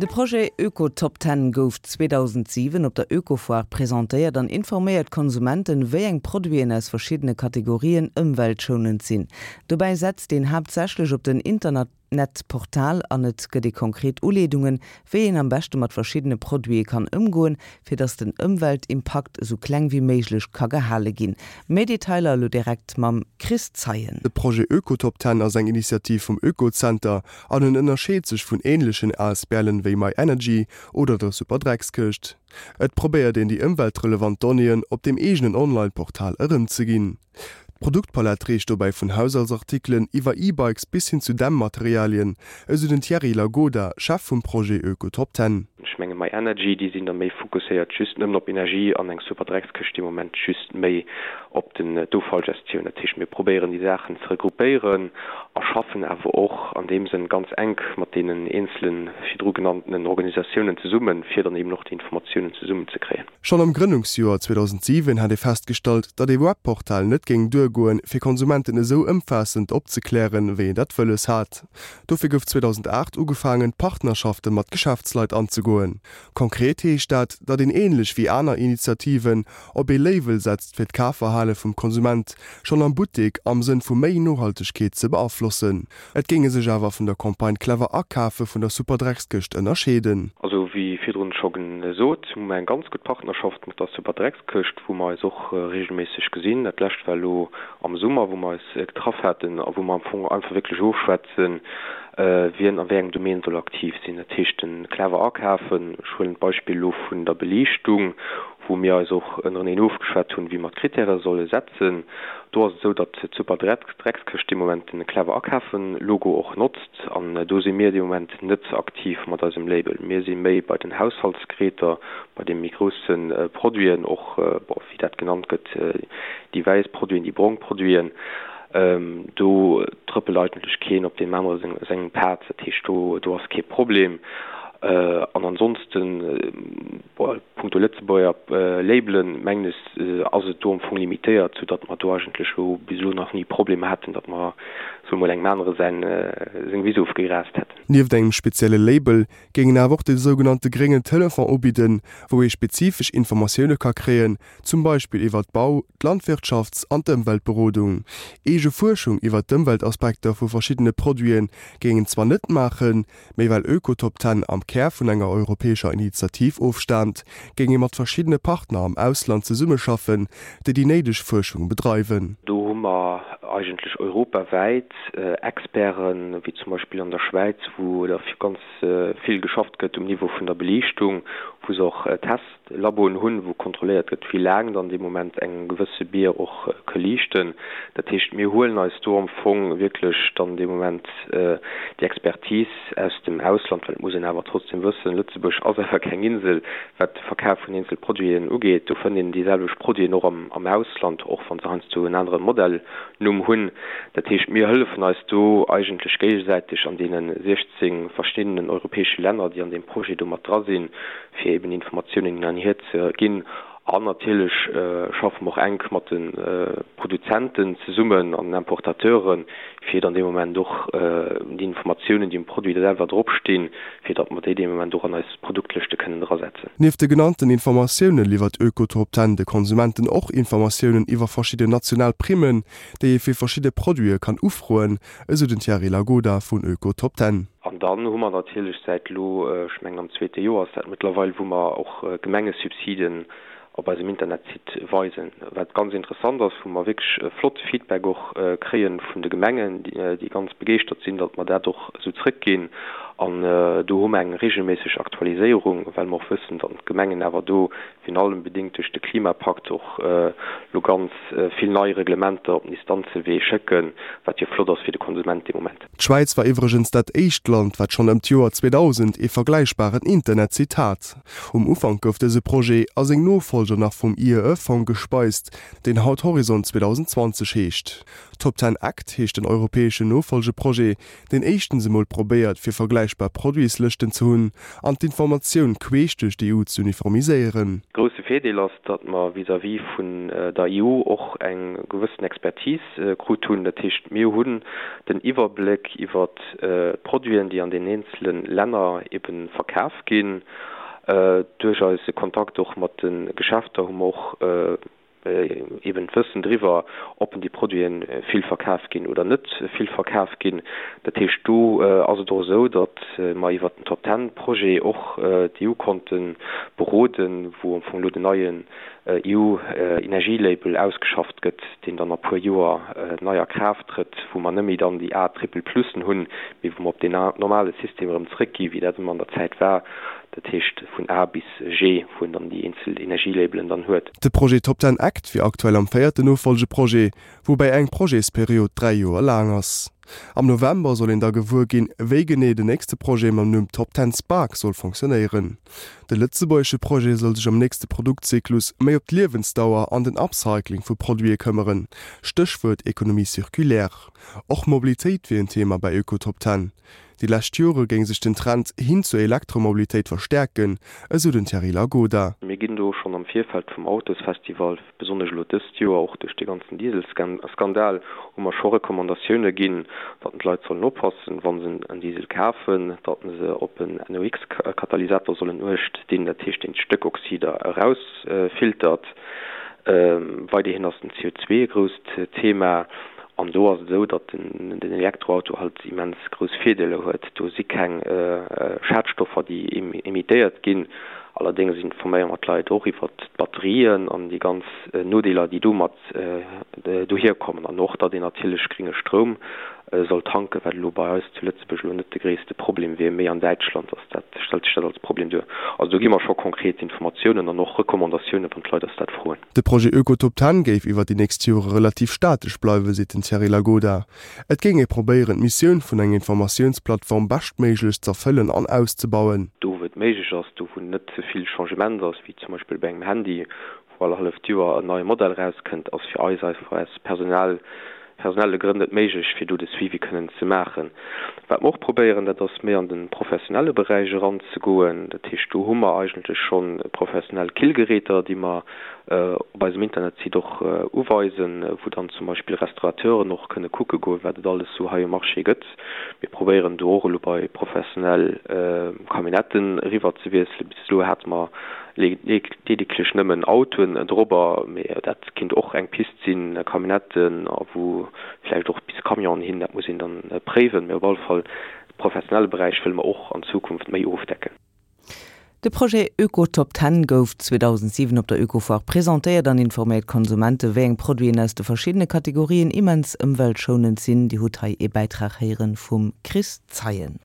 De Projet Öko-Top Ten gouf 2007 op der Ökofoire presentéiert an informéiert d'Konsumenten, wéi eng Produiten aus verschiddene Kategorien ëmweltschounend sinn. Dobäi setzt een haaptsächlech op den Internetportal an et gëtt ee konkret Uleedungen, wéi een am beschte mat verschiddene Produite kann ëmgoen, fir datt den Ëmweltimpakt esou kleng wéi méiglech ka gehale ginn. Méi Detailer elo direkt mam Chris Zeien. De Projet Ökotop Ten ass eng Initiativ vum Oekozenter An en ënnerscheet sech vun änlechen ASBLen wéi MyEnergy oder der Superdreckskëscht. Et probéiert een déi ëmweltrelevant Donnéeën op deem eegenen Online-Portal erëmzeginn. D'Produktpalett reecht dobäi vun Haushaltsartikelen iwwer E-Bikes bis hin zu Dämmmaterialien, esou den Thierry Lagoda, Chef vum Projet Öko-Top-Ten. Ech menge MyEnergy, déi sinn da méi fokusséiert just nëmmen op Energie an eng Superdreckskëscht dee Moment just méi op den d'Offallgestioun. Dat heescht, mir probéieren déi Saachen ze regroupéieren a schaffen awer och an deem Sënn ganz enk mat deenen eenzele virdru genanntenen Organisatiounen zesummen, fir dann eben och déi Informatiounen zesummenzekréien. Schonn am Grënnungsjoer 2007 hat ee festgestallt, datt ee Webportal net géing duergoen, fir Konsumenten esou ëmfaassend opzeklären, wéi een dat wëlles hat. Dofir gouf 2008 ugefaangen, Partnerschafte mat Geschäftsleit anzegoen. Konkret heescht dat, datt een änlech wéi aner Initiativen op ee Label setzt fir d'Kafverhale vum Konsument schonn am Buttek am Sënn vu méi Nohaltegkeet ze beaflossen. Et géinge sech awer vun der Campagne Clever akafe vun der Superdreckskëscht ënnerscheeden. Also wéi virdrun scho gesot, hu mer eng ganz gutt Partnerschaft mat der Superdreckskëscht, wou mer eis och regelméisseg gesinn. Dat lescht war elo am Summer, wou mer eis getraff haten a wou mer am Fong einfach wierklech ofschwätzen, wien a wéi engem Domaine soll aktiv sinn. Dat heescht, de clever akafen, ech huelen d'Beispill elo vun der Beliichtung, wou mir eis och ënnereneen ofgeschwat hunn, wéi mer d'Kritäre solle setzen. Do ass et esou, datt d'Superdreckskëscht dee Moment den clever akafen-Logo och notzt an do si mir dee Moment net aktiv mat eisem Label. Mir si méi bei den Haushaltsgeräter, bei de méi grousse Produiten och, bon, wéi dat genannt gëtt, déi wäiss Produiten, déi brong Produiten. Do trëppelt eigentlech keen op deem anere sengem Pad. Dat heescht, do do ass kee Problem. An ansonsten, bon, punkto Lëtzebuerger Labelen, mengen ech, ass et do am Fong limitéiert, soudatt mer do eigentlech elo bis elo nach ni Problemer haten, datt mer, soe mol, engem anere säin seng Wiss ofgegraast hätten. Nieft engem spezielle Label géing een awer och de sougenannte gréngen Telefon ubidden, wou ee spezifesch Informatioune ka kréien, zum Beispill iwwer d'Bau-, d'Landwirtschafts an d'Ëmweltberodung. Eege Fuerschung iwwer d'Ëmweltaspekter vu verschiddene Produite géing een zwar net maachen, mee well Ökotop Ten am Kär vun enger europäescher Initiativ ofstaamt, géing ee mat verschiddene Partner am Ausland zesummeschaffen, déi déi néideg Fuerschung bedreiwen. Do hu mer eigentlech europawäit Experten, wéi zum Beispill an der Schwäiz, wou der ganz vill geschafft gëtt um Niveau vun der Beliichtung, wou se och Testlaboen hunn, wou kontrolléiert gëtt, wéi laang dann dee Moment eng gewësse Bier och ka liichten. Dat heescht, mir huelen eis do am Fong wierklech dann dee Moment déi Expertise aus dem Ausland, well et muss een awer trotzdem wëssen, Lëtzebuerg ass awer keng Insel, wat de Verkaf vun eenzel Produiten ugeet. Do fënnt een déi selwecht Produiten och am Ausland, och wa se heiansdo en anere Modellnumm hunn. Dat heescht, mir hëllefen eis do eigentlech géigesäiteg an deene 16 verschiddenen europäesche Länner, déi an deem Projet do mat dra sinn, fir eben Informatiounen hin an hier ze ginn. An natierlech schaffe mer och enk mat de Produzenten zesummen an den Importateuren, fir dann dee Moment och déi Informatiounen, déi um Produit selwer dropstinn, fir datt mer déi dee Moment och an eis Produktlëschte kënnen drasetzen. Nieft de genannten Informatioune liwwert Ökotop Ten de Konsumenten och Informatiounen iwwer verschidden national Primmen, déi ee fir verschidde Produite kann ufroen, esou den Thierry Lagoda vun Ökotop Ten. An dann hu mer natierlech säit elo, ech mengen am zweete Joer ass dat mëttlerweil, wou mer och Gemengesubsiden op eisem Internetsite weisen, wat ganz interessant ass, wou mer wierklech flotte Feedback och kréie vun de Gemengen, déi ganz begeeschtert sinn, datt mer dat och esou zrëckginn. An do hu mer eng regelméisseg Aktualiséierung, well mer och wëssen, datt d'Gemengen awer do virun allem bedéngt duerch de Klimapakt och elo ganz vill nei Reglementer op den Instanzewee schécken, wat jo flott ass fir de Konsument dee Moment. D'Schwäiz war iwwregens dat éischt Land, wat schonn ëm d'Joer 2000 ee vergläichbaren Internetsite hat. Um Ufank gouf dëse Projet a seng Nofollger nach vum IEE-Fong gespeist, deen haut Horizont 2020 heescht. Top Ten Act heescht den europäeschen Nofollgeprojet, deen éischtens emol probéiert, fir vergläichbar. vergläichbar Produitslëschten ze hunn an d'Informatioun queesch duerch d'EU z'uniformiséieren. Grousse Virdeel ass, datt mer vis-à-vis vun der EU och eng gewëssen Expertise krut hunn. Dat heescht, mir hunn den Iwwerbléck iwwert d'Produiten, déi an den eenzele Länner ebe verkaf ginn. Duerch eise Kontakt och mat de Geschäfter hu mer och eben d'Wëssen driwwer, ob déi Produite vill verkaf ginn oder net vill verkaf ginn. Dat heescht, do ass et och esou, datt mer iwwert den Top Ten Projet och d'EU konnte beroden, wou am Fong elo den neien EU-Energielabel ausgeschafft gëtt, deen dann a puer Joer nei a Kraaft trëtt, wou mer net méi dann déi A Triple Plussen hunn, mee wou mer op deen normale System erëm zrëckgi wéi dat ëmmer an der Zäit war, dat heescht vun A bis G, wou een dann déi eenzel Energielabelen dann huet. De Projet Top Ten Act wier aktuell am véierten Nofollgeprojet, woubäi eng Projetsperiod 3 Joer laang ass. Am November soll een da gewuer ginn, wéi genee den nächste Projet mam Numm Top Ten Spark soll fonctionnéieren. De lëtzebuergesche Projet soll sech am nächste Produktzyklus méi op d'Liewensdauer an den Upcycling vu Produite këmmeren, Stéchwuert Économie circulaire. Och Mobilitéit wier en Thema bei Öko-Top Ten. Déi lescht Jore géing sech den Trend hin zur Elektromobilitéit verstäerken, esou den Thierry Lagoda. Mir ginn do schonn am Virfeld vum Autosfestival, besonnesch elo dëst Joer, och duerch dee ganzen Dieselskandal, hu mer scho Recommandatioune ginn, datt d'Leit sollen oppassen, wa se en Diesel kafen, datt se op en NOx-Katalysator sollen uecht dinn, dat heescht deen d'Stéckoxider erausfiltert. Weiderhin ass den CO2 e grousst Thema. An do ass et esou, datt den Elektroauto halt immens grouss Virdeeler huet. Do si keng Schadstoffer, déi emittéiert ginn. Allerdéngs informéiere mer d'Leit och iwwert d'Batterien an déi ganz Nodeeler, déi domat dohier kommen. An och, datt een natierlech grénge Stroum soll tanken, wat elo bei eis zu Lëtzebuerg elo net de gréisste Problem wier, méi an Däitschland ass dat, stellt sech dat als Problem duer. Also do gi mer scho konkret Informatiounen an och Recommandatiounen, wann d'Leit eis dat froen. De Projet Ökotop Ten géif iwwer déi nächst Jore relativ statesch bleiwen, seet den Thierry Lagoda. Et géing ee probéieren, d'Missioun vun enger Informatiounsplattform beschtméiglechst z'erfëllen an auszebauen. Do wou et méiglech ass, do wou net ze vill Changement ass, wéi zum Beispill bei engem Handy, wou all halleft Joer en neie Modell erauskënnt, ass fir eis einfach aus Personal, personelle Grënn net méiglech, fir do de Suivi kënnen ze maachen. Wat mer och probéieren, dat ass méi an de professionelle Beräich eranzegoen. Dat heescht, do hu mer eigentlech scho professionell Killgeräter, déi mer op eisem Internetsite och uweisen, wou dann zum Beispill Restaurateuren och kënne kucke goen, wat et alles sou hei um Marché gëtt. Mir probéieren do och elo bei professionell Camionnetten eriwwer ze wiesselen. Bis elo hate mer ledeglech nëmmen Autoen dorobber, mee dat kinnt och eng Pist sinn, Camionnetten a wou vläicht och bis Camionen hin, dat muss een dann préiwen. Mee op alle Fall de professionelle Beräich wëlle mer och an Zukunft méi ofdecken. De Projet Öko-Top Ten gouf 2007 op der Ökofoire presentéiert an informéiert d'Konsumente wéi eng Produiten aus de verschiddene Kategorien immens ëmweltschounend sinn. Dir hutt hei ee Bäitrag héieren vum Chris Zeien.